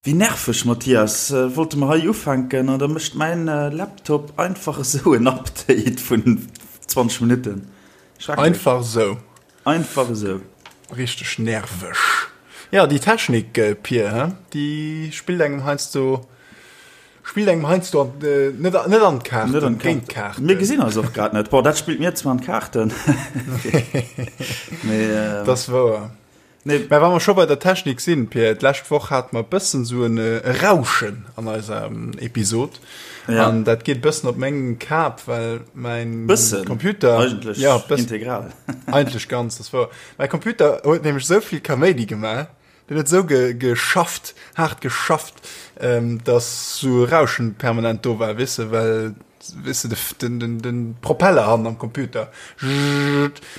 Wéi nerveg, Mathias. Wollte mer hei ufänken an da mécht mäin Laptop einfach esou en Update vun 20 Minutten. Schrecklech. Einfach esou. Einfach esou. Richteg nerveg. Jo, déi Technik, Pir, he, déi spillt engem heiansdo, spillt engem heiansdo an, net, net an d'Kaarten, Net an géint d'Kaarten. Mir gesinn eis och grad net. Bon, dat spillt mir zwar an d'Kaarten. Mee. Dat ass wouer. Nee. Mä wa mer scho bei der Technik sinn, Pir, d'lescht Woch hate mer e bëssen esou en Rauschen an eiser Episod. Ja. An dat geet e bëssen op meng Kap, well mäin Bëssen? Computer. Eigentlech ja, bëssen, integral. Eigentlech ganz, dat wor. Mäi Computer huet nämlech esou vill Kaméidi gemaach, deen huet esou ge, geschafft, haart geschafft, ähm, dass esou e Rauschen permanent do war, weess de, well Weess de, den, den, den Propeller hannen am Computer. Dat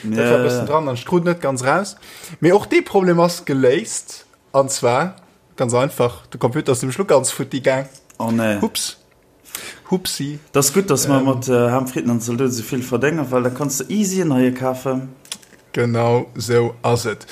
war e bëssen dran an ech krut net ganz raus. Mee och dee Problem ass geléist. An zwar ganz einfach, de Computer ass nämlech lo ganz futti gaang. Oh nee. Hups. Hupsi. Dat ass gutt, dass mer mat Ham, Fritten an Zaldote sou vill verdéngen, well da kanns de easy en neie kafen. Genau sou ass et.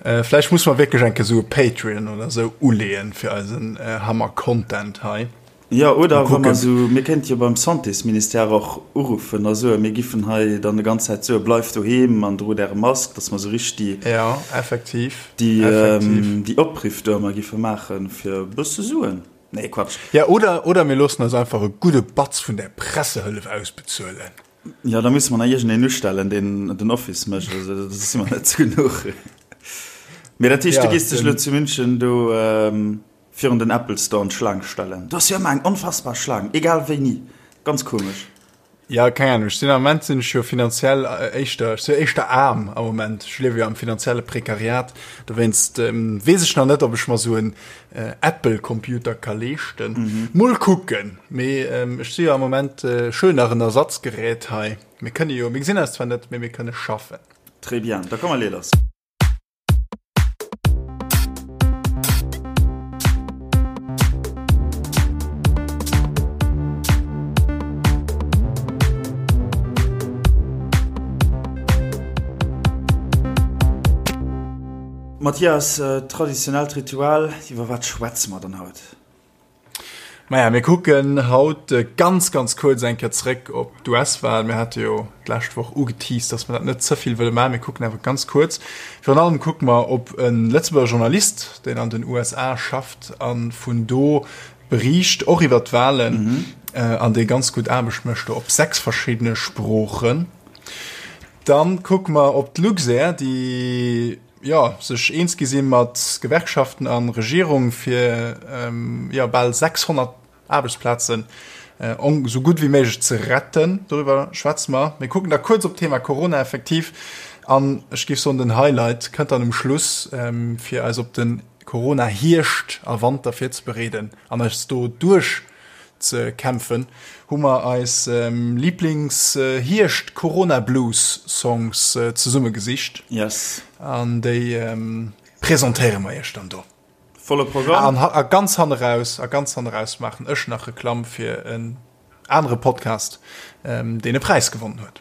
Vläicht musse mer wierklech eng Kéier sou e Patreon oder sou uleeën fir eisen Hammer-Content hei. Jo, oder wa mer esou, mir kéinte jo beim Santésministère och uruffen a soen, mir giffen hei dann déi ganz Zäit soen, bleift doheem an drot Äre Mask, datt mer esou richteg déi, Jo, effektiv, déi, effektiv. déi Opriff do ëmmer giffe maachen, fir e bësse Suen. Nee, Quatsch. Jo, oder, oder mir loossen eis einfach e gudde Batz vun där Pressehëllef ausbezuelen. Jo, da musse mer nach iergendeen ustellen, deen den Office mécht, also da si mer net zu genuch. Mee dat heescht, du gees dech elo zu München do Virun den Apple Store an d'Schlaang stellen. Do ass jo ëmmer eng onfassbar Schlaang, egal wéini. Ganz komesch. Ja, keng Ahnung. Ech sinn am Moment sinn ech jo finanziell éischter, ech si jo éischter aarm am Moment. Ech liewe jo am finanzielle Prekariat. Dowéinst weess ech nach net, ob ech mer esou en Apple Computer ka leeschten. Mol kucken. Mee ech si jo am Moment, ech huelen nach en Ersatzgerät hei. Mir kënne jo, mir gesinn eis zwar net, mee mir kënne schaffen. Très bien, da komm mer lee lass. Mathias, traditionellt Ritual, iwwer wat schwätze mer dann haut? Maja, mir kucken haut ganz, ganz kuerz eng Kéier zréck op d'US-Wal. Mir hate jo d'lescht Woch ugeteased, dass mer dat net ze vill wëlle maachen. Mir kucken awer ganz kuerz. Virun allem kucke mer op e Lëtzebuerger Journalist, deen an den USA schafft a vun do beriicht, och iwwer d'Walen, an dee ganz gutt Aarbecht mécht do op 6 verschiddene Sproochen. Dann kucke mer op d'Luxair, déi, jo, sech eens gi si mat Gewerkschaften a Regierung, fir jo bal 600 Aarbechtsplazen esou gutt wéi méiglech ze retten. Doriwwer schwätze mer. Mir kucken da kuerz op d'Thema Corona effektiv an ech géif soen, den Highlight kënnt dann um Schluss, fir eis op de Corona-Hierscht a Wanter virzebereeden an eis do duerch ze kämpfen, hu mer eis Lieblings Hierscht Corona Blues Songs zesumme gesicht. Yes. An déi presentéiere mer iech dann do. Volle Programm. An a ganz hanne raus, a ganz hanne raus maachen ech nach Reklamm fir en anere Podcast, deen e Präis gewonnen huet.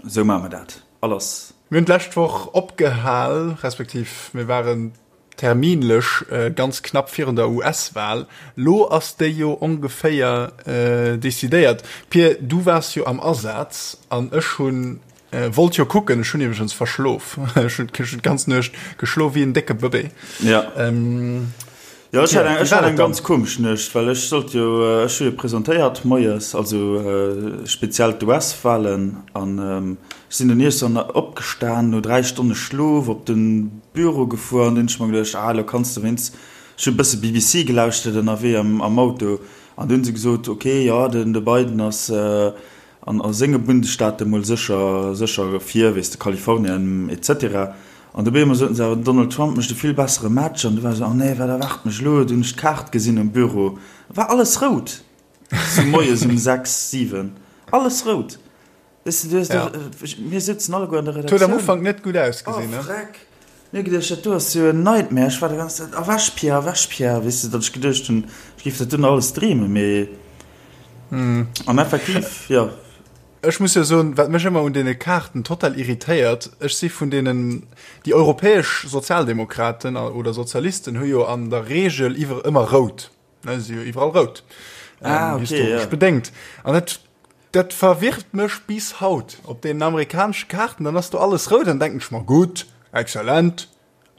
Esou maache mer dat. Alles. Mir hunn d'lescht Woch opgehal, respektiv mir waren terminlech ganz knapp virun der US-Wahl. Lo ass déi jo ongeféier decidéiert. Pir, du waars jo am Asaz an ech hunn wollt jo kucken. Ech hunn iwwregens verschlof. Ech hunn d'ganz Nuecht geschlof wéi en décke Bëbee. Ja. Jo, ech hat eng, ech hat eng ganz komesch Nuecht, well ech sollt jo, ech hu jo presentéiert moies, also speziell d'US-Wahlen, an ech sinn dunn iergendwann opgestan no 3 Stonne Schlof, op de Büro gefuer an dunn hunn ech mer geduecht, ah elo kanns de wéinst, ech hu e bësse BBC gelauschtert ënnerwee am Auto, an dunn hu se gesot, ok, jo, den de Biden ass An a senge Bundesstaate mol sécher, sécher vir, weess de, Kalifornien etc. An dobäi emol soten se awer, den Donald Trump mécht e vill bessere Match. An du war esou, oh nee, wat erwaart mech elo? Du hunn ech d'Kaart gesinn um Büro, war alles rout, sou moies um 6, 7, alles rout. Weess de, du hues do, mir souzen alleguer an der Redaktioun. Huet am Ufank net gutt ausgesinn, ne? Oh freck! Mir hu geduecht, dat do ass jo en Nightmare. Ech war de ganze Zäit, Erwäch Pierre, erwäch Pierre, weess de, datt ech geduecht hunn, ech géif dat dunn alles dreemen, mee an effektiv, jo. Ech muss jo soen, wat mech ëmmer un deene Kaarten total irritéiert, ech si vun deenen, déi europäesch Sozialdemokraten oder Sozialisten hu jo an der Regel iwwer ëmmer rout, ne, si jo iwwerall rout, ah, okay, historesch ja. bedéngt. An dat, dat verwirrt mech bis haut. Op deenen amerikanesche Kaarten, dann ass do alles rout, dann denken ech mer, gutt, exzellent,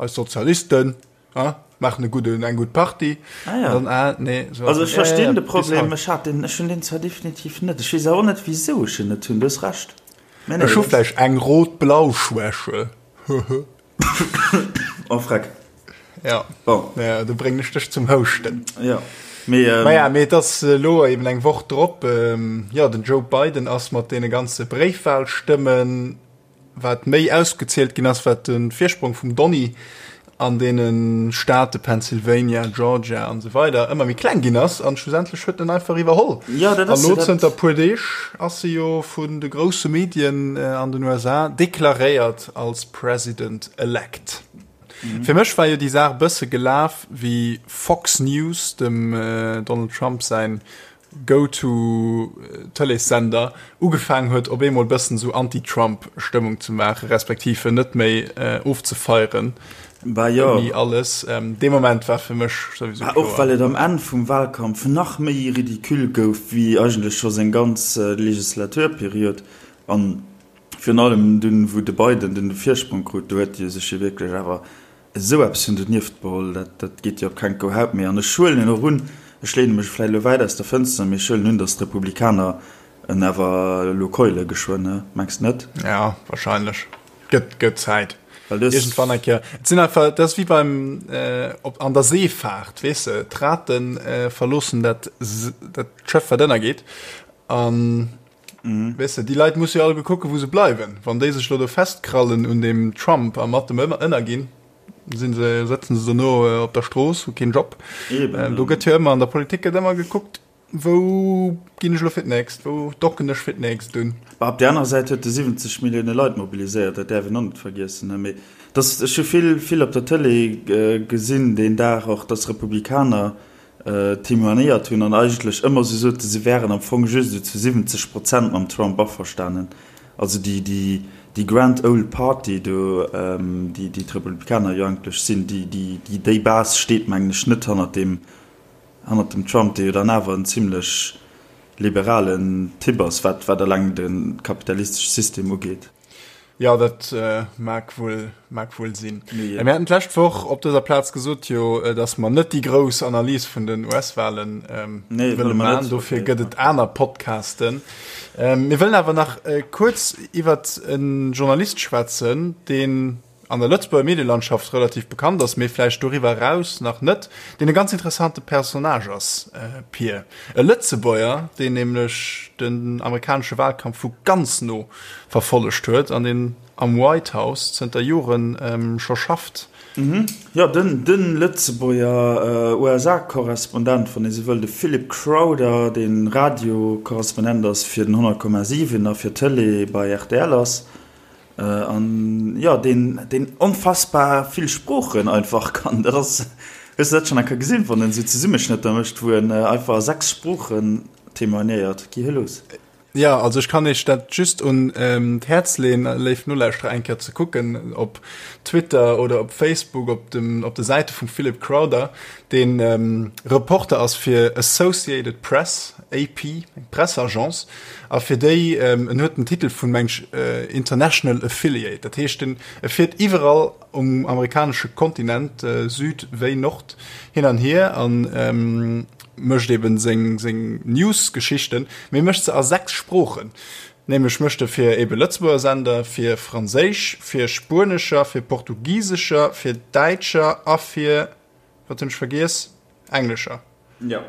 Eis Sozialisten ah, maachen e gudden, eng gutt Partie. Ah, ja. Dann, ah, nee, so also ech verstinn ja, ja, de Problem, ech hat den, ech hunn den zwar definitiv net. Ech weess awer och net, wisou ech en net hunn, du hues Recht. Nee, nee, ech hu vläicht eng rot-blau Schwäche. Oh, freck. Ja. Bon. Ja, do bréngen ech dech zum Houschten. Ja. Mee, ähm, Naja, mee et ass elo eben eng Woch drop. Ähm, ja, den Joe Biden ass mat deene ganze Bréifwahlstëmmen Wat méi ausgezielt ginn ass, wat de Virsprong vum Donny an deene Staate Pennsylvania, Georgia an esou weider ëmmer méi kleng ginn ass an schlussendlech huet en einfach iwwerholl. Ja, dat ass An elo zënter puer Deeg ass e jo vun de grousse Medien an den USA deklaréiert als President elect. Fir mech war jo déi Saach e bësse gelaf wéi Fox News, dem Donald Trump säin Go-to-Tëleessender ugefaangen huet op eemol bëssen esou Anti-Trump-Stëmmung ze maachen, respektiv en net méi ofzefeieren Bah jo. ouni alles. Dee Moment war fir mech souwisou Bah och kloer. well et am Enn vum Wahlkampf nach méi ridicule gouf wéi eigentlech scho seng ganz Legislaturperiod. An virun allem dunn, wou de Biden dunn de Virsprong krut, do huet e sech jo wierklech awer Esou eppes hunn donieft beholl, dat, dat geet jo op keng Kou Haut méi. An ech huelen och un, ech leene mech vläicht elo wäit aus der Fënster, mee ech huelen un, datt d'Republikaner en awer elo keule geschwënn, ne? Mengs de net? Ja, wahrscheinlech. Gëtt, gëtt Zäit. Well dës. Iergendwann eng Kéier. Et sinn einfach, dat ass wéi beim, op, an der Seefaart, weess de, d'Rate verloossen dat, dat Schëff, wat ënnergeet. An. Weess de, déi Leit musse jo alleguer kucken, wou se bleiwen. Wann déi sech elo do festkrallen un deem Trump a mat dem ënnerginn, sinn se, sëtzen se dono op der Strooss, hu keen Job. Eben. Do gëtt jo ëmmer, an der Politik gëtt ëmmer gekuckt, wou ginn ech elo fir d'nächst, wou docken ech fir d'nächst un. Bah, op där aner Säit huet e 70 Millioune Leit mobiliséiert, dat däerf een och net vergiessen. Mee dass, ech hu vill, vill op der Tëlee gesinn deen Dag och, dass Republikaner témoignéiert hunn an eigentlech ëmmer esou soten, se wären am Fong just esou zu 70 Prozent mam Trump averstanen. Also déi, déi, déi Grand Old Party do, déi, déi d'Republikaner jo eigentlech sinn, déi, déi, déi, déi Base steet, mengen ech, net hannert deem, hannert dem Trump, dee jo dann awer en zimlech liberalen Typ ass, wat, wat eleng de kapitalistesche System ugeet. Jo, dat mag wuel, mag wuel sinn. Mir haten d'lescht Woch op dëser Plaz gesot jo, datt mer net déi grouss Analys vun den US-Wahlen wëlle maachen. Dofir gëtt et aner Podcasten. Mir wëllen awer nach kuerz iwwert e Journalist schwätzen, deen an der Lëtzebuerger Medielandschaft relativ bekannt ass, mee vläicht doriwwer eraus nach net, deen e ganz interessante Personnage ass, Pir. E Lëtzebuerger, deen nämlech den amerikanesche Wahlkampf vu ganz no verfollegt huet an deen am White House zënter Jore scho schafft. Jo, den de Lëtzebuerger USA-Korrespondent, wann ee sou wëll, de Philip Crowther, dee Radio-Korrespondent ass fir den 100,7 a fir d'Tëlee bei rtl ass. An jo, deen, deen onfassbar vill Sproochen einfach kann. Dat ass, hues de dat schonn eng Kéier gesinn, wann en esou Zesummeschnëtter mécht, wou en einfach a 6 Sproochen témoignéiert? Gi hie los. Jo, also ech kann iech dat just un d'Häerz leeën, léif Nolauschterer, eng Kéier ze kucken op Twitter oder op Facebook, op dem, op de Säite vum Philip Crowther, deen Reporter ass fir Associated Press, AP, eng Presseagence, a fir déi, en huet den Titel vun, meng ech, International Affiliate, dat heescht, en e fiert iwwerall um amerikanesche Kontinent, Süd wéi Nord, hin an hier a mécht eben seng, seng News-Geschichten, mee mécht se a 6 Sproochen, nämlech mécht e fir ebe Lëtzebuerger Sender, fir Franséisch, fir Spuenescher, fir Portugisescher, fir Däitscher a fir, wat hunn ech vergiess, Englescher. Jo.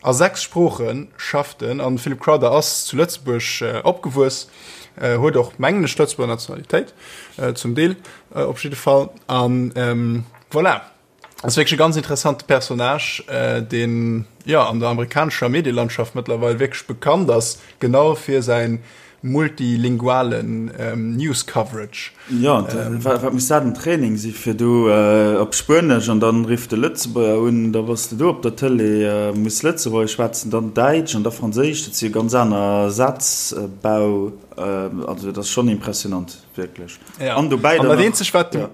A 6 Sprooche schafft en an de Philip Crowther ass zu Lëtzebuerg opgewuess, huet och, mengen ech, Lëtzebuerger Nationalitéit, zum Deel op jidde Fall. An voilà, ass wierklech e ganz interessante Personnage, deen, jo, an der amerikanescher Medielandschaft mëttlerweil wierklech bekannt ass, genau fir säin. multilingualen News Coverage. Jo, wat muss dat en Training si fir do op Spuenesch an dann rifft de Lëtzebuerger un, da bass de do op der Tëlee, muss Lëtzebuergesch schwätzen, dann Däitsch an da Franséisch, dat si jo ganz aner Sazbau, also dat ass schonn impressionant wierklech. An dobäi dann nach.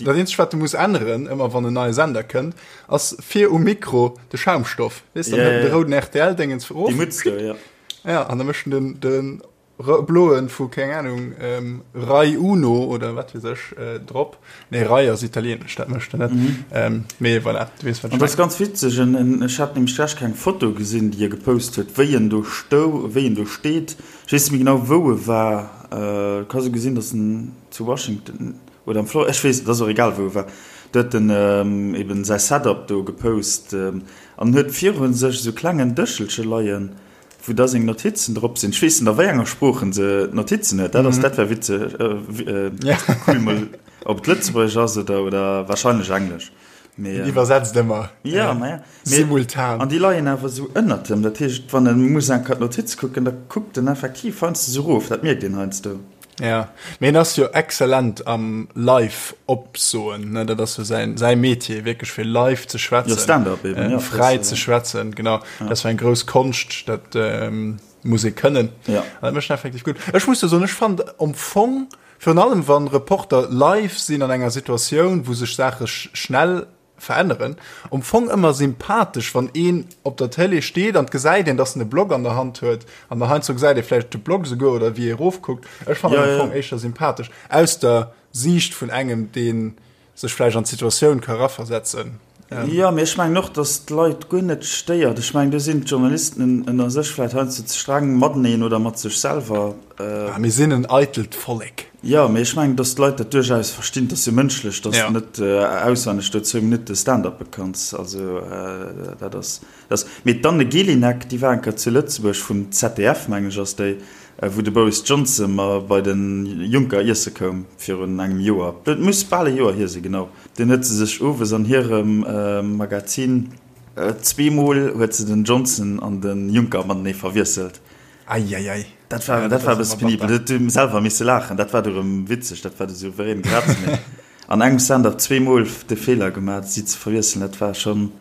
Dat eenzegt wat de muss änneren, ëmmer wann en neie Sender kënnt, ass vir um Mikro de Schaumstoff. Weess de, dann hëlt en de rouden RTL-Déngens erof. Déi Mutz do, jo. Ja, an da mécht en den, de bloen vu, keng Ahnung, Rai Uno oder wat weess ech drop. Nee, Rai ass italienesch, dat mécht en net. Mee voilà, du weess wat ech mengen. An dat ass ganz witzeg, ech hat nämlech d'lescht Kéier eng Foto gesinn, déi e gepost huet, wéi en do stou, wéi en do steet. Ech weess net méi genau, wou e war. Ka sou gesinn, datt en zu Washington, Oder am Flor, ech weess, et ass och egal wou e war, do huet en eben säi Setup do gepost an huet viru sech esou klengen Dëschelche leien, wou da seng Notizen drop sinn. Ech weess net a wéi enger Sprooch en se d'Notizen huet, dat ass, dat wär witzeg, cool mol, ob et Lëtzebuergesch ass oder, oder wahrscheinlech Englesch. Mee, en iwwersetzt ëmmer. Ja, ma ja. Simultan. An déi leien awer esou ënnert em, dat heescht, wann e muss eng Kéier d'Notiz kucken, da kuckt en effektiv heiansdo esou erof, dat mierkt een heiansdo. Ja, mee en ass jo exzellent am live opsoen, ne, dat ass jo säin, säi Metier, wierklech fir live ze schwätzen. Jo, Stand-up eben, ja. Fräi ze schwätzen, genau. Ja. Dat ass jo eng grouss Konscht, dat muss ee kënnen. Ja. An dat mécht en effektiv gutt. Ech muss jo soen, ech fand am Fong, virun allem wann Reporter live sinn an enger Situatioun, wou sech Saache schnell veränneren, um Fong ëmmer sympathesch, wann een op der Télé steet an gesäit een, dass en e Blog an der Hand huet an der heiansdo gesäit ee vläicht de Blog souguer oder wéi ee erofkuckt. Ech fannen ja, am Fong ja. éischter sympathesch aus der Siicht vun engem, dee sech vläicht an d'Situatioun ka raversetzen. Ähm. Jo, mee ech mengen och, dass d'Leit guer net stéiert. Ech mengen, do sinn d'Journalisten ënner sech vläicht heiansdo ze streng mateneen oder mat sech selwer. Ah, mir sinn en eitelt Vollek. Jo, mee ech mengen, dass d'Leit dat duerchaus verstinn. Et ass jo mënschlech, dass de net auswenneg do zwou Minutte Stand-uppe kanns. Also dat ass, dat ass. Mee d'Anne Gélinek, déi war eng Kéier zu Lëtzebuerg, vum ZDF, mengen ech ass déi, wou de Boris Johnson ma bei de Juncker iesse koum virun engem Joer. Et muss bal e Joer hier sinn, genau. Dunn huet se sech owes an hirem Magazin, zweemol huet se den Johnson an de Juncker matenee verwiesselt. Eieiei. Dat war, dat war e bësse penibel. Dat huet selwer misse laachen. Dat war du erëm witzeg. Dat war de souverän Graz. Mee an engem Stand-up zweemol de Feeler gemaach, si ze verwiesselen, dat war schonn,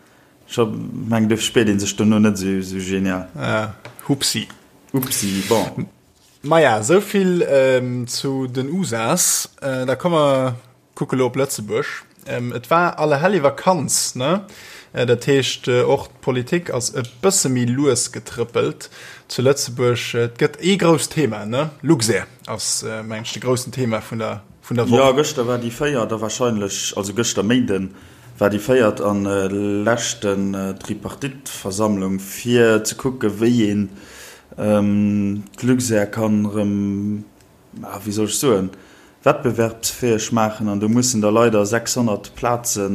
scho mengen, duerfir spiert ee sech dono net esou, esou genial. Ah, hupsi. Upsi, bon. Maja, esou vill zu den USAs. Da komme mer Kucke lo op Lëtzebuerg. Et war Allerhellevakanz, ne? Dat heescht, och d'Politik ass e bësse méi lues getrëppelt zu Lëtzebuerg. Et gëtt ee grousst Thema, ne? Luxair ass, mengen ech, de groussen Thema vun der, vun der Woch. Jo, gëschter war déi véiert a wahrscheinlech, also gëschter Méinden war déi véiert a leschten Tripartite-Versammlung, fir ze kucke wéi een d'Luxair kann erëm ah, wéi soll ech soen, wettbewerbsfäeg maachen an do mussen da leider 600 Plaze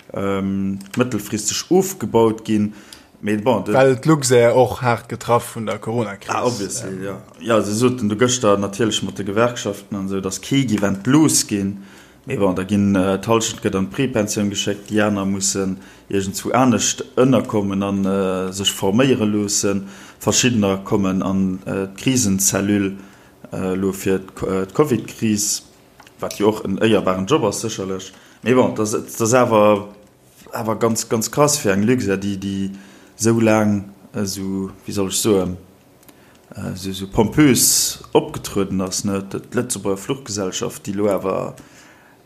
mëttelfristeg ofgebaut ginn. Mee bon, de. Well d'Luxair och haart getraff vun der Coronakris. Ah, obviously, jo. Jo, se soten do gëschter natierlech mat de Gewerkschaften an esou, datt kee géif entlooss ginn. Mee bon, da ginn d'Hallschent gëtt an d'Prepensioun geschéckt, déi aner mussen iergendzwou anescht ënnerkommen a sech forméiere loossen. Verschiddener kommen an d'Krisenzellule. Elo fir d'Covid-Kris, wat jo och en éierbaren Job ass sécherlech, mee bon, et ass awer awer ganz, ganz krass fir eng Luxair, déi déi esou laang esou, wéi soll ech soen, esou esou pompös opgetrueden ass, ne, d'Lëtzebuerger Fluchgesellschaft, déi elo awer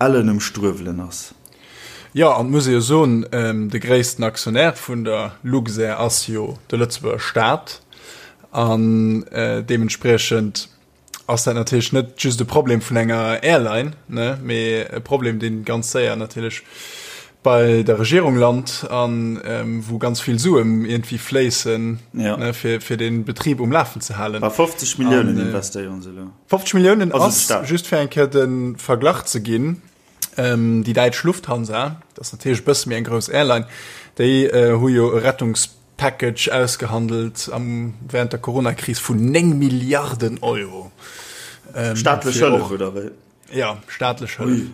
ellen um Struewelen ass. Jo, an et muss ee jo soen, de gréissten Aktionär vun der Luxair ass jo de Lëtzebuerger Staat. An deementspriechend ass dat natierlech net just e Problem vun enger Airline, ne, mee e Problem, dee ganz séier natierlech bei der Regierung lant an wou ganz vill Suen iergendwéi fléissen, ja. ne, fir, fir den Betrib um Lafen ze halen. Bei 50 Milliounen investéieren se elo. 50 Milliounen ass, just fir eng Kéier de Verglach ze ginn, Déi däitsch Lufthansa, dat ass natierlech e bësse méi eng grouss Airline, déi hu jo e Rettungspackage ausgehandelt am während der Coronakris vun 9 Milliarden Euro. Staatlech Hëllef, oder wéi? Ja, staatlech Hëllef.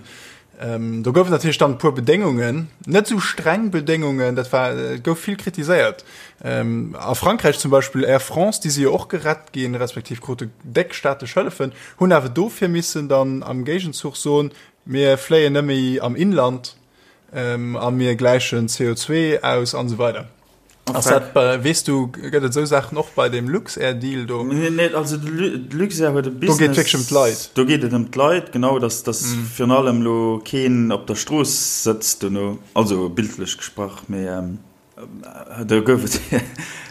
Do gouf et natierlech dann e puer Bedéngungen, net esou streng Bedéngungen, dat war, et gouf vill kritiséiert. A Frankräich zum Beispill Air France, déi si jo och gerett ginn, respektiv krute déck staatlech Hëllefen, hunn awer dofir missen dann am Géigenzuch soen, mir fléien net méi am Inland a mir gläichen CO2 aus an esou weider. Ass dat bei, weess du, gëtt et esou Saachen och bei deem Luxair-Deal do? Nee, nee, also de Luxair huet e Business. Do geet et wierklech ëm d'Leit. Do geet et ëm d'Leit, genau, dass, dass virun allem elo keen op der Strooss sëtzt dono, also bildlech gesprach, mee do gouf et,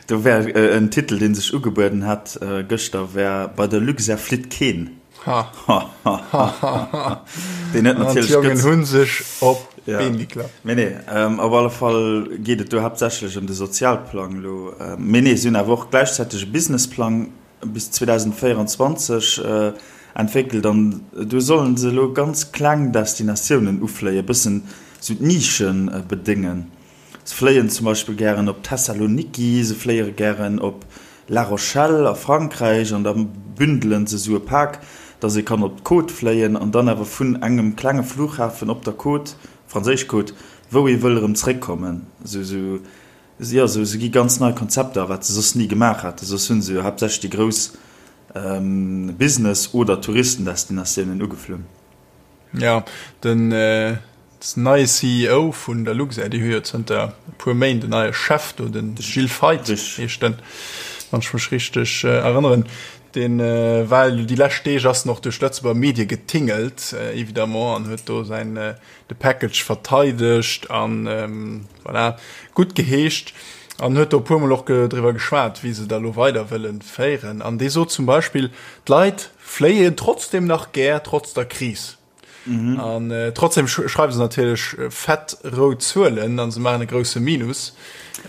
do wär en Titel, dee sech ugebueden hätt gëschter, wär Bei der Luxair flitt keen. Ha. Ha, ha, ha, ha. Deen huet natierlech. An d'Jongen hu sech op d'Been geklappt. Mee nee, op alle Fall geet et do haaptsächlech ëm de Sozialplang elo. Mee nee, si hunn awer och gläichzäiteg e Businessplang bis 2024 entwéckelt an do solle se elo ganz kleng Destinatiounen ufléien, e bëssen esou d'Nischen bedéngen. Se fléien zum Beispill gären op Thessaloniki, se fléiere gären op La Rochelle a Frankräich an da bündelen se esou e Pak, dass ee kann op d'Côte fléien an dann awer vun engem klenge Flughafen op der Côte, franséisch Côte, wou ee wëll erëm zréckkommen. Esou, esou, jo, esou, se gi ganz nei Konzepter, wat se soss ni gemaach haten. Soss hu se jo haaptsächlech déi grouss Business oder Touristendestinatiounen ugeflunn. Jo, den neie CEO vun der Luxair, déi hu jo zënter e puer Méint en neie Chef do, de Gilles Feith heescht en, wann ech mech richteg erënneren. Dee war elo déi lescht Deeg ass en och duerch d'Lëtzebuerger Medie getingelt, évidemment, an huet do säin de Package verteidegt an voilà, gutt geheescht an huet do e puermol och driwwer geschwat, wéi se da lo weider wëlle féieren. An dee sot zum Beispill, d'Leit Fléien trotzdem nach gär, trotz der Kris. Mhm. An äh, trotzdem schreiwen se natierlech äh, fett rout Zuelen an se maachen e grousse Minus.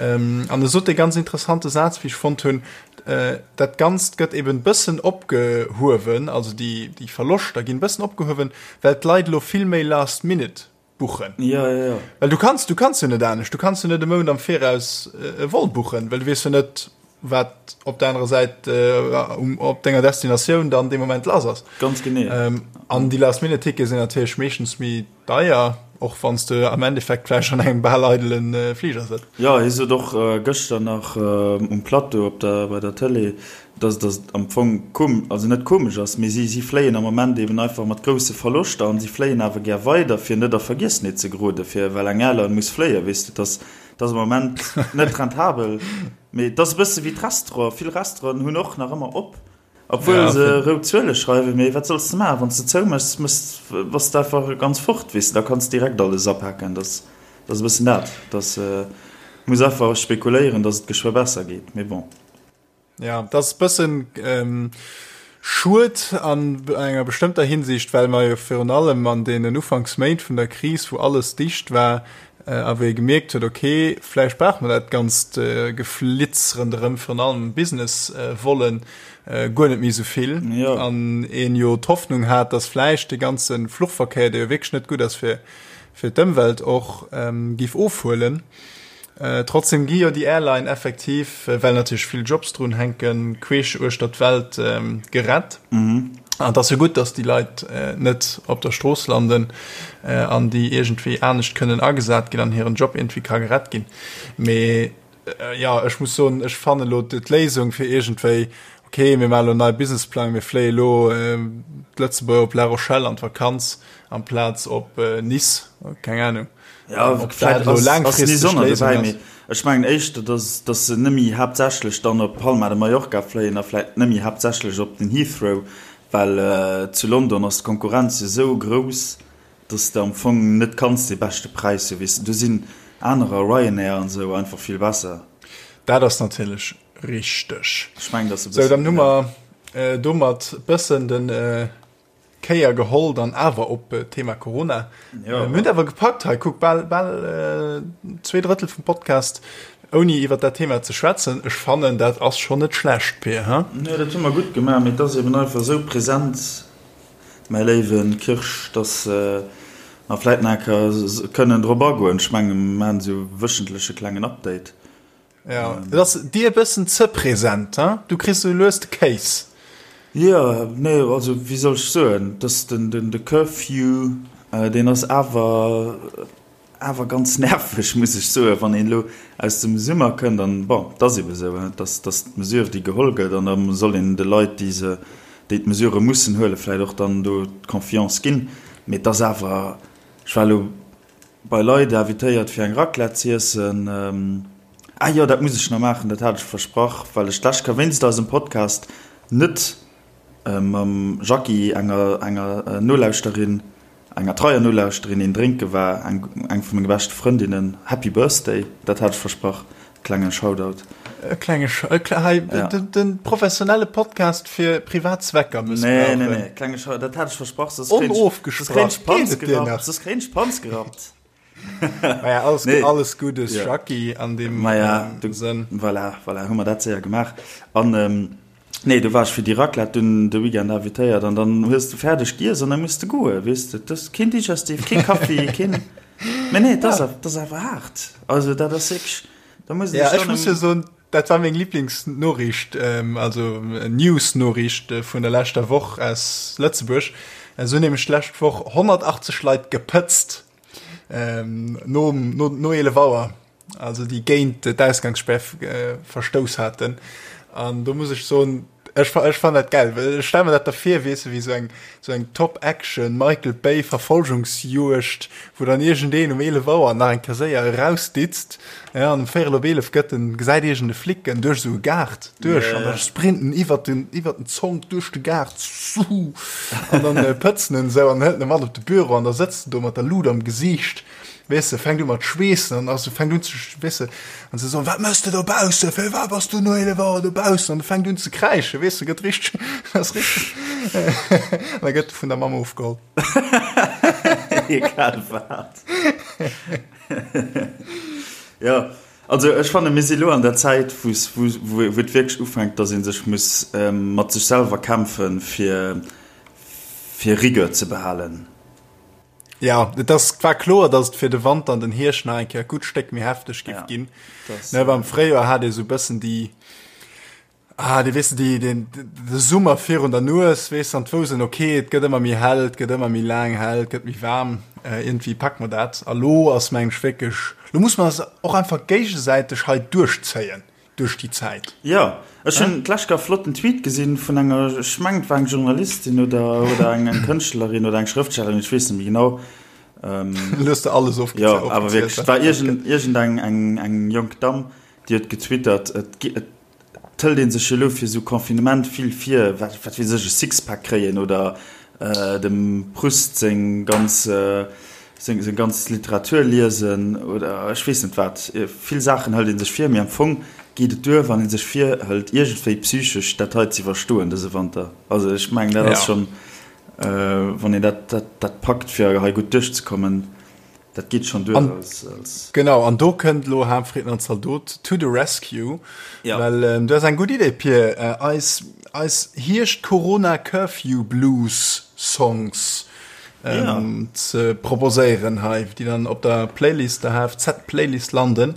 Ähm, an e sot e ganz interessante Saz, wéi ech fonnt hunn, äh, dat Ganzt gëtt eben bëssen opgehuewen, also déi, déi Verloschter ginn bëssen opgehuewen, well d'Leit elo vill méi last minute buchen. Ja, ja, ja. Well du kanns, du kanns jo net anescht. Du kanns jo net e Mount am Viraus e Vol buchen, well du weess jo net, wat op der anerer Säit äh, op denger Destinatioun dann dee Moment lass ass. Ganz genee. Ähm, an déi Last-Minute-Tickete sinn natierlech meeschtens méi deier, och wann s de am Endeffekt vläicht an engem bal eidelen äh, Fliger sëtz. Ja, hie sot och äh, gëschter nach äh, um Plateau op der, bei der Tëlee, dass dass et am Fong kom also net komesch ass, mee si si fléien am Moment eben einfach mat grousse Verloschter an si fléien awer gär weider, fir net a Vergiessenheet ze geroden, fir well eng Airline muss fléien, weess de. Dass dass am Moment net rentabel, mee et ass e bësse wéi d'Restauranten, vill Restauranten hunn och nach ëmmer op, obwuel se rout Zuele schreiwen, mee wat solls de maachen, wann s de zouméchs, méchs bass de einfach ganz fort, weess de, da kanns de direkt alles apaken, dass dass e bëssen dat, dass muss einfach spekuléieren, dass et geschwë besser geet, mee bon. Ja, dat ass bëssen schued an enger bestëmmter Hinsicht, well mer jo virun allem an deenen Ufanksméint vun der Kris, wou alles dicht war a wou ee gemierkt huet, okay, vläicht brauche mer dat ganzt Geflitz ronderëm, virun allem Business-Vollen, guer net méi esou vill. An een jo d'Hoffnung hat, dass vläicht dee ganze Fluchverkéier, dee jo wierklech net gutt ass fir d'Ëmwelt och, géif ofhuelen. Trotzdem gi jo déi Airline effektiv, well natierlech vill Jobs drun hänken, queesch uechter d'Welt gerett. An et ass jo gutt, datt déi Leit net op der Strooss landen an déi iergendwéi anescht kënnen agesat ginn an hiren Job iergendwéi ka gerett ginn. Mee jo, ech muss soen, ech fannen elo d'Léisung fir iergendwéi, okay, mir maachen elo en neie Businessplang, mir fléie elo d'Lëtzebuerger op La Rochelle an d'Vakanz amplaz op Nice, keng Anung. Ja, Ob dat elo laangfristeg d'Léisung ass. Ech mengen éischter, dass, dass se nëmme haaptsächlech dann op Palma de Mallorca fléien a vläit nëmme haaptsächlech op den Heathrow, well zu London ass d'Konkurrenz jo esou grouss, dass de am Fong net kanns dee beschte Präis hu, weess de. Do sinn anerer, Ryanair an esou, einfach vill besser. Dat ass natierlech richteg. Ech mengen, dass e bëssen. Sou, dann hu mer domat bëssen den. Kéier geholl dann awer op d'Thema Corona. Ja. Mir hunn awer gepackt hei, kuck, bal, bal 2 Drëttel vum Podcast ouni iwwer dat Thema ze schwätzen. Ech fannen, dat ass schonn net schlecht, Pir, he? Jo, dat hu mer gutt gemaach, mee et ass eben einfach esou present, mäi léiwe Kirsch, dass mer vläit nach eng Kéier kënnen drop agoen. Ech mengen, mer maachen esou wéchentleche klengen Update. Ja, et ass dir e bëssen ze present, he? Du kriss sou lues de Kéis. Jo, nee, also wéi soll ech soen, dass den, den, de Curfew. Deen ass awer awer ganz nerveg, muss ech soen, wann een elo aus dem Summer kënnt. An bon, et ass ebe sou, dass dass d'Mesure, déi geholl gëtt, an da soll een de Leit, déi se, déi d'Mesurë mussen huelen, vläicht och dann do d'Confiance ginn. Mee et ass awer, ech war elo bei Leit invitéiert, fir eng Raclette z'iessen. Ah jo, dat muss ech nach maachen, dat hat ech versprach, well ech d'lescht Kéier wéinst eisem Podcast net mam Jackie, enger enger Nolauschterin, enger treier Nolauschterin, een drénke war, eng eng vu menge beschte Frëndinnen. Happy Birthday, dat hat ech versprach, klenge Shoutout. E klenge Sh-, e kle-, hei, ja. den, den professionelle Podcast fir privat Zwecker mëssbrauchen. Nee, nee, nee, klenge Shoutout, dat hat ech versprach, soss kréien ech, soss kréien ech d'Panz gerappt, soss kréien ech d'Panz gerappt. Maja, alles, nee. alles Gutes, ja. Jackie, an dem Maja, ähm, du, Sënn. Voilà, voilà, hu mer dat séier gemaach. An, ähm, nee, du warst fir déi Raclette dunn de Weekend invitéiert an dann hues du fäerdeg giess an dann muss du goe, weess de. Das keen Digestif, keen Kaffi, keen. Mä nee, das, ja. das awer hart. Also dat ass wierklech, da muss ja, ech muss jo soen, dat war meng Lieblingsnoriicht, ähm, also News-Noriicht äh, vun der leschter Woch aus Lëtzebuerg. Äh, so nämlech d'lescht Woch 180 Leit gepëtzt. Ähm, no, no, no 11 Auer, also déi géint d'Ausgangssperr äh, verstouss haten. An do muss ech soen, ech, ech fand dat geil. Well ech stell mir dat da vir, weess de, wéi sou eng, sou eng Top-Action Michael Bay Verfolgungsjuegd, wou dann iergendeen um 11 Auer nach eng Kéier séier erausditzt, ja, an um véierel op 11 gëtt en, gesäit iergend e Flic en duerch esou e Gaart duerch, an da sprinten iwwert den, iwwert den Zonk duerch de Gaart, suhu, an dann pëtzen en esou an hëlt en mat op de Büro an da sëtzt en do mat der Lut am Gesiicht, weess de, fänkt u mat schweessen an ass, fänkt un ze, weess de, an se soen, wat mëss de dobaussen, firwat bass du no 11 Auer dobaussen, an e fänkt un ze kräischen, weess de, gëtt richteg, ass richteg, an da gëtt e vun der Mamm ofgeholl. Egal wat. Jo, also ech fanne mir si lo an der Zäit, wou wou et wierklech ufänkt, datt ee sech muss mat sech selwer kämpfen, fir fir Rigueur ze behalen. Ja, et ass war kloer, datt et fir de Wanter an den Hierscht nach eng Kéier e gutt Stéck méi hefteg giff ginn. Ne, am Fréijoer hat ee sou e bëssen déi Ah, déi, weess de, déi, den, de Summer virun der Nues, weess de, an d'wouss en, okay, et gëtt ëmmer méi hell, et gëtt ëmmer méi laang hell, et gëtt méi waarm, äh, iergendwéi packe mer dat. A lo ass, meng ech, wierklech, lo muss mer eis och einfach géigesäiteg hei duerchzéien duerch déi Zäit. Jo, ech hunn d'lescht Kéier e flotten Tweet gesinn vun enger, ech mengen, et war eng Journalistin oder, oder eng, eng Kënschtlerin oder eng Schrëftstellerin, ech weess net méi genau. Ähm, Lo hues de alles ofgezählt. Jo, awer wierklech, et war iergend, iergendeng eng, eng jonk Damm, déi huet getwittert, et, et Et hëlt een sech jo elo fir esou Confinement vill vir, wat wat weess ech, e Sixpack kréien oder dem Proust seng ganz seng seng ganz Literatur liesen oder ech weess net wat. Vill Saachen hëlt ee sech vir, mee am Fong geet et duer, wann ee sech virhëlt, iergendwéi psychesch dat hei ze iwwerstoen dëse Wanter. Also ech mengen, dat ass schonn, wann een dat dat dat packt, fir hei gutt duerchzekommen, Dat geet schon duer als, als. Genau, an do kënnt lo Harmfrieden an Zaldot to the rescue. Ja. Well ähm, du has eng gutt Idee, Pir. Äh, eis, eis Hierscht-Corona-Curfew-Blues-Songs ähm, ja. ze proposéieren hei, déi dann op der Playlist, der HFZ-Playlist landen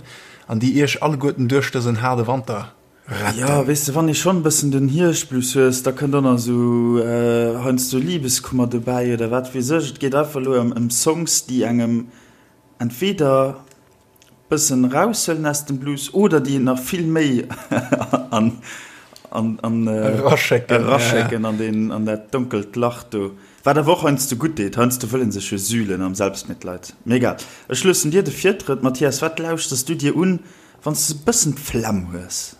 an déi iech alleguerten duerch dësen haarde Wanter Retten. Ja, weess de, wann ee schonn e bëssen den Hierschtblues hues, da kënnt och nach esou heiansdo Libeskummer dobäi oder wat weess ech. Et geet einfach elo ëm ëm Songs, déi engem entweder bëssen eraushuelen aus dem Blues oder déi een nach vill méi an an an Eraschécken, eraschécken an deen an dat donkelt Lach do. Wat awer och heiansdo gutt deet, heiansdo wëll ee sech jo sühlen am Selbstmitleid. Mee egal, ech loossen dir de Virtrëtt, Mathias. Wat lauschters du dir un, Wann s de e bëssen d'Flemm hues.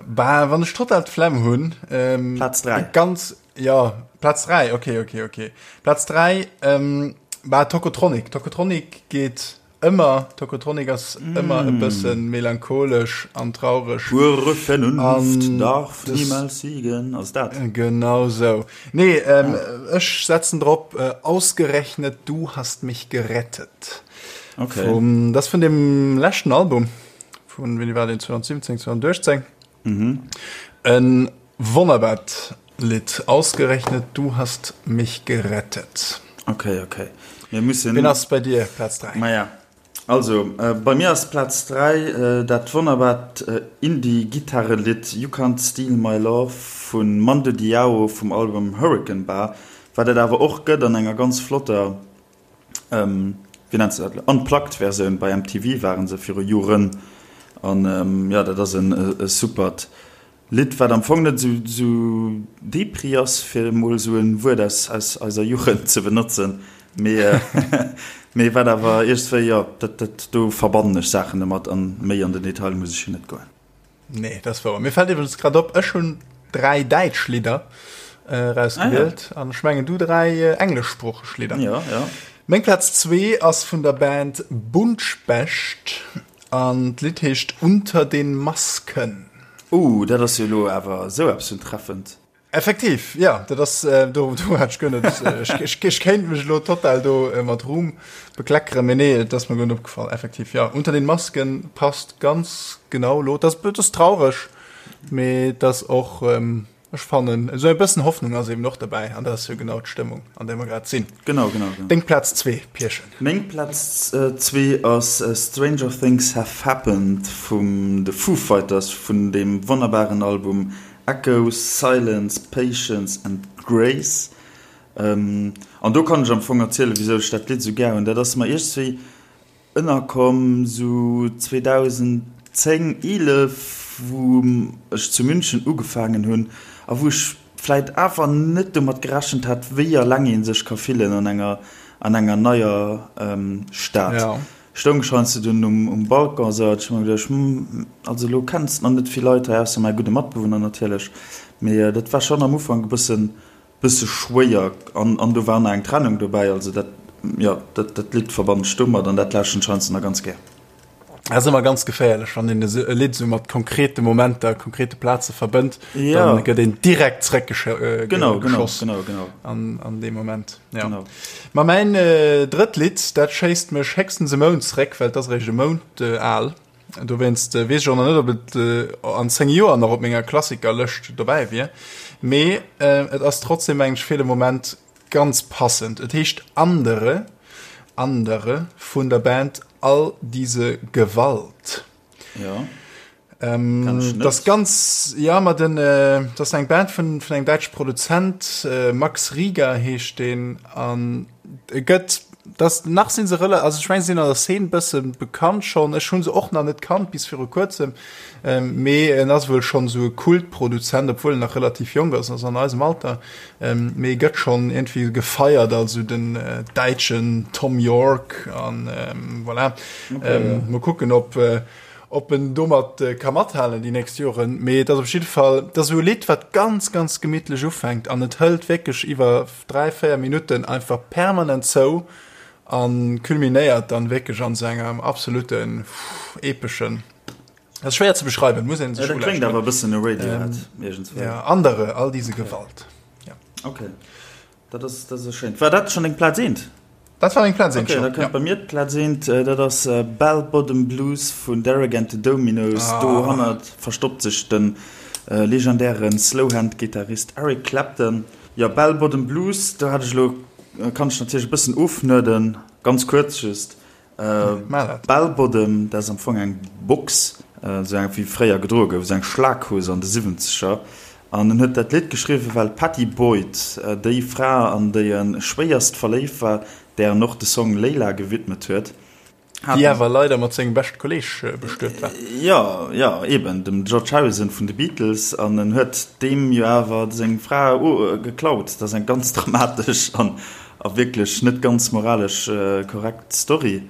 Bah, wann ech total d'Flemm hunn. Ähm, Plaz 3. Ganz, ja, Plaz 3, okay, okay, okay. Plaz 3, ähm, bah, Tocotronic. Tocotronic geet ëmmer. Tocotronic ass mm. ëmmer e bëssen melancholesch an traureg. Pure Vernunft an darf das, niemals siegen. Ass dat? Genau sou. Nee, ähm, ah. ech setzen drop, äh, ausgerechnet du hast mich gerettet. Okay. Vum, das vun dem leschten Album vun wéini war den 2017 2018 mhm. en wonnerbart Lied ausgerechnet du hast mich gerettet okay okay wir müssen Wen ass bei dir Platz 3 Maja also äh, bei mir ass Platz 3 äh, dat wonnerbart äh, Indie Gitarrelied You Can't Steal My Love vun Mando Diao vum Album Hurricane Bar. Wat et awer och gëtt an enger ganz flotter, wéi nennt se dat elo, Unplugged-Versioun, bei MTV waren se viru Joren. An jo, dat ass e supert Lidd, wat am Fong net esou depri ass, fir emol esou e Wuert aus eiser Jugend ze benotzen, mee wat awer iergendwéi, jo, dat do verbannen ech Saachen domat an méi an den Detail muss ech jo net goen. Nee, dat ass wouer. Mir fält iwwregens grad op, ech hunn 3 däitsch Lidder erausgewielt an ech mengen du 3 engleschsproocheg Lidder. Jo, jo. Meng Plaz zwee ass vun der Band Buntspecht an d'Lidd heescht Unter den Masken. Uh, dat ass jo elo awer esou eppes vun treffend. Effektiv, jo, dat ass, do do hat ech guer net, ech ech kéint mech elo total do mat Ruhm bekleckeren, mee nee, et ass mer guer net opgefall. Effektiv, jo, Unter den Masken passt ganz genau elo. Dat ass, dat ass traureg, mee et ass och, Ech fannen, esou e bëssen Hoffnung ass eben och derbäi, an dat ass jo genau d'Stëmmung, an där mer grad sinn. Genau, genau, genau. Deng Plaz zwee, Pierchen? Meng Plaz zwee ass Stranger Things Have Happened vum de Foo Fighters, vun deem wonnerbaren Album Echoes, Silence, Patience and Grace. An do kann ech am Fong erzielen, wisou ech dat Lidd esou gär hunn. Dat ass mer iergendwéi Ënnerkomm sou 2010, 11, wou ech zu München ugefaangen hunn a wou ech vläit awer net domat gerechent hat, wéi eleng ee sech ka fillen an enger an enger neier Stad. Stoung ech heiansdo dunn um Balcon esou hat ech mer geduecht, hm, also elo kenns nach net vill Leit hei, ausser mäi gudde Matbewunner natierlech, mee dat war schonn am Ufank e bëssen Bësse schwéier an an do war nach eng Trennung dobäi, also dat jo dat dat Lidd verbannen ech domat an dat lauschteren ech heiansdo nach ganz gär. Dat ass ëmmer ganz geféierlech, wann een esou e Lidd esou mat konkrete Momenter, konkrete Plaze verbënnt, Ja. dann gëtt een direkt zréckgeschoss Genau, genau, genau, genau. an, an deem Moment. Ja. Genau. Ma mäin äh, drëtt Lidd, dat schéisst mech héchstens e Mount zréck, well et ass eréischt e Mount äh, al. Dowéinst weess ech och nach net, ob et an 10 Joer nach op menger Klassikerlëscht dobäi wier. Mee et ass trotzdem, mengen ech, fir de Moment ganz passend. Et heescht Andere, Andere vun der Band All diese Gewalt. Ja. Ähm, das ganz ja ma den äh, das eng Band vun vun engem däitsche Produzent äh, Max Rieger heescht den an e gëtt das nach sinn se rela also ech meng sinn an der Szene bësse bekannt schon ech hunn se och nach net kannt bis viru kuerzem ähm, mee en ass wuel schon sou e Kultproduzent obwuel en nach relativ jonk ass ass an eisem Alter ähm, mee gëtt schon irgendwie gefeiert als sou den äh, däitschen Thom Yorke an ähm, voilà okay, ähm, ja. Mol kucken ob äh, Ob en domat ka mathalen déi nächst Joren, mee et ass op jidde Fall, et ass esou e Lidd, wat ganz, ganz gemittlech ufänkt an et hëlt wierklech iwwer 3, 4 Minutten einfach permanent zou a culminéiert dann wierklech an esou engem absoluten epeschen, dat ass schwéier ze beschreiwen, muss een sech ulauschteren. Dat kléngt awer e bëssen no Radiohead iergendswéi. Ja, Andere, all diese Gewalt. Ja. Okay. Dat ass, dat ass schéin. War dat schonn deng Plaz eent? Dat war meng Plaz eent schonn, ja. Okay, da kënnt bei mir d'Plaz eent. Dat ass Bell Bottom Blues vun Derek and the Dominos. Ah. Dohannert verstoppt sech de legendäre Slowhand-Gittarist Eric Clapton. Jo, Bell Bottom Blues, do hat ech elo, kann ech natierlech e bëssen ofnerden, ganz kuerz just. Bell Bottom, dat ass am Fong eng Box, esou eng wéi fréier gedroe gouf, esou eng Schlaghose an de Siwwenzeger. An en huet dat Lidd geschriwwen, well d'Pattie Boyd, déi Fra an déi e schwéierst verléift war, där en och de Song Layla gewidmet huet, hat. Déi awer leider mat sengem beschte Kolleeg bestuet war. Jo, jo, eben, dem George Harrison vun de Beatles. An en huet deem jo awer seng Fra geklaut. Dat ass eng ganz dramatesch an A wierklech net ganz moralesch korrekt Story,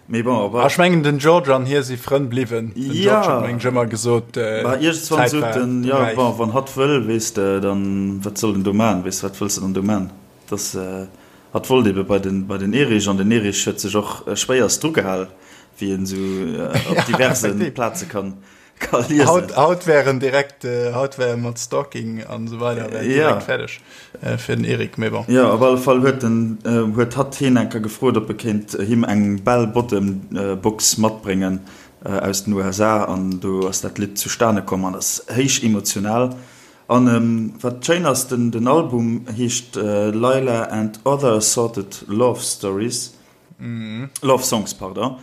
mee bon, op. Ech mengen den George an hie si Frënn bliwwen. Den George huet mengen ech ëmmer gesot, Bah, iergendswann d'Zäit sot war en, jo, räif. bon, wann hatt wëll, weess de, dann, wat soll en do man, weess de, wat wëlls de dann do man? Dass, hatt wollt ebe bei den, bei den Erich, an den Erich huet sech och schwéierst drugehal, wéi een esou op diverse Plaze kann. Ka liesen. Haut, haut wär en direkt, äh, haut wär mat Stalking an esou weider wär en Ja. direkt fäerdeg äh, fir den Eric, mee bon. Jo, op alle Fall huet en, äh, huet hatt hien eng Kéier gefrot, ob e kéint him eng Bell Bottom Box matbréngen äh, aus den USA an do ass dat Lidd zustane komm an ass héich emotional. An ähm, wat schéin ass, den, den Album heescht äh, Layla and Other Assorted Love Stories. Love Songs, pardon.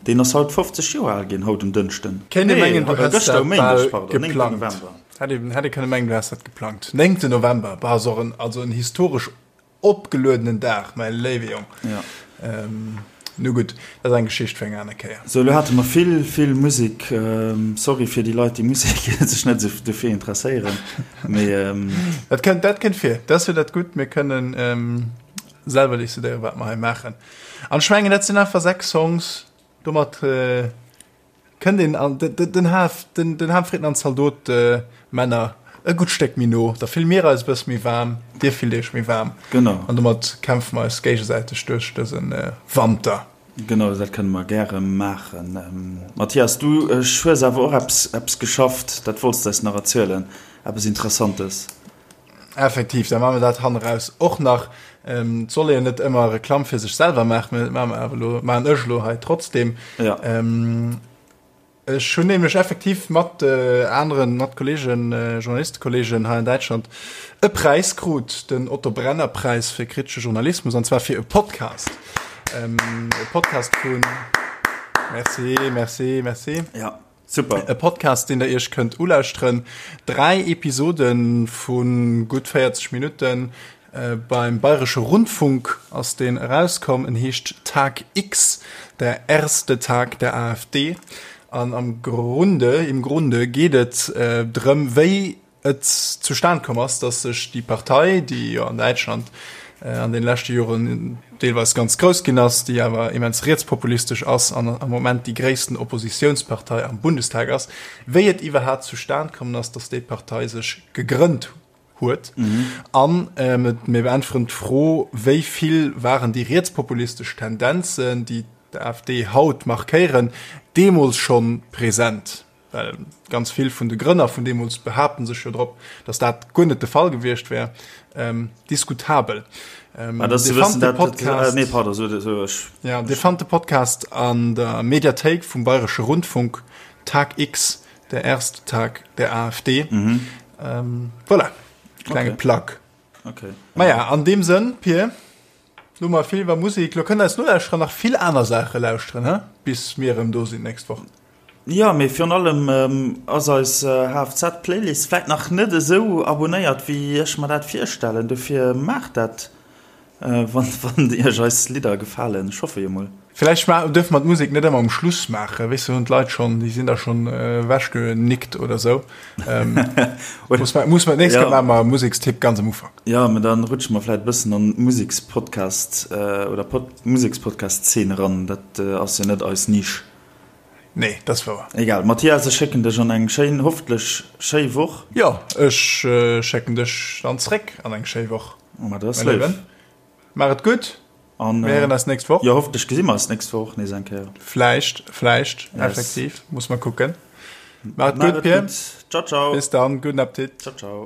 Deen ass haut 50 Joer al ginn, haut um Dënschden. Kéint ee mengen, du häss gëschter dat um Méindeg, bal pardon, 9. geplangt. November. Hätt ee, hätt ee kënne mengen, du häss dat geplangt. 9. November, bah, ass och en, also en historesch. opgeluedenen Dag, mäi léiwe Jong. Ja. Ähm, nu gutt, dat ass eng Geschicht fir eng aner Kéier. Sou, elo hate mer vill, vill Musek. Sorry fir déi Leit, déi Musek sech net esou dofir interesséieren, mee. Dat kënnt, dat kënnt vir. Dat ass jo dat Gutt, mir kënnen selwer decidéieren, wat mer hei maachen. An ech mengen, dat sinn einfach 6 Songs, domat. Kënnt een an den Haf, den Hafritten an d'Zaldot-Männer e gutt Stéck méi no, da fille mir eis e bësse méi waarm, dir fillt iech méi waarm. Genau. An domat kämpfe mer eis géigesäiteg duerch dëse Wanter. Genau, dat kënne mer gäre maachen. Mathias, du hues awer och eppes, eppes geschafft, dat wollts de eis nach erzielen, eppes Interessantes. Effektiv, da maache mer dat hanneraus och nach. Et soll een net ëmmer Reklamm fir sech selwer maachen, mä dat maache mer awer elo, maachen ech elo hei trotzdem. Ja. Ech hunn nämlech effektiv mat aneren, mat Kollegen, Journalistekollegen hei an Däitschland e Präis krut, den Otto Brenner Präis fir kritesche Journalismus, an zwar fir e Podcast. E Podcast vun, merci, merci, merci. Ja. Super. E Podcast, deen der Iech kënnt ulauschteren. 3 Episode vu gutt 40 Minutten. Beim Bayresche Rundfunk ass deen erauskomm. En heescht Tag X, der erste Tag der AfD. An am Grunde, im Grunde geet et drëm, wéi et zustan komm ass, dass sech déi Partei, déi jo an Däitschland an den leschte Joren deelweis ganz grouss ginn ass, déi awer immens rietspopulistesch ass an am Moment déi gréissten Oppositiounspartei am Bundestag ass, wéi et iwwerhaapt zustan kommen ass, dass déi Partei sech gegrënnt huet. An mir beäntweren d'Fro, wéi vill waren déi rietspopulistesch Tendenzen, déi d'AfD haut markéieren, deemools schonn present? Well ganz vill vun de Grënner vun deemools behaapten sech jo drop, datt dat guer net de Fall gewiescht wär. Diskutabel. Dir fannt de Podcast an der Mediathéik vum Bayresche Rundfunk, Tag X, der erste Tag der AfD. Voilà, klenge Plug. Maja, an deem Sënn, Pir. Lo hu mer vill iwwer Musek, lo kënnen eis Nolauschterer nach vill aner Saache lauschteren, he? Bis mir erëm do sinn d'nächst Woch. Jo, mee virun allem ass eis HFZ-Playlist vläit nach net esou abonéiert, wéi ech mer dat virstellen. Dofir maacht dat, wann iech eis Lidder gefalen. Ech hoffe jo mol. Vläicht dürfe mer d'Musek net ëmmer um Schluss maachen, weess du, hunn d'Leit schonn, déi sinn da schonn ewechgenickt oder sou. Muss mer, muss mer d'nächst Kéier maache mer e Musekstipp ganz am Ufank. Jo, mä dann rutsche mer vläicht e bëssen an d'Musekspodcast oder Musekspodcast-Zeen eran. Dat ass jo net eis Nisch. Nee, dat ass wouer. Egal. Mathias, ech schécken dech an eng schéin, hoffentlech schéi Woch. Jo, ech schécken dech dann zréck an eng schéi Woch, Ma dat ass léif. Maach et gutt. An mir héieren eis nächst Woch. Jo, hoffentlech gesi mer eis nächst Woch och nees eng Kéier. Vläicht, vläicht, yes. Effektiv, muss mer kucken. Maach et gutt, Pir. Ciao, ciao. Bis dann, gudden Appetit. Ciao, ciao.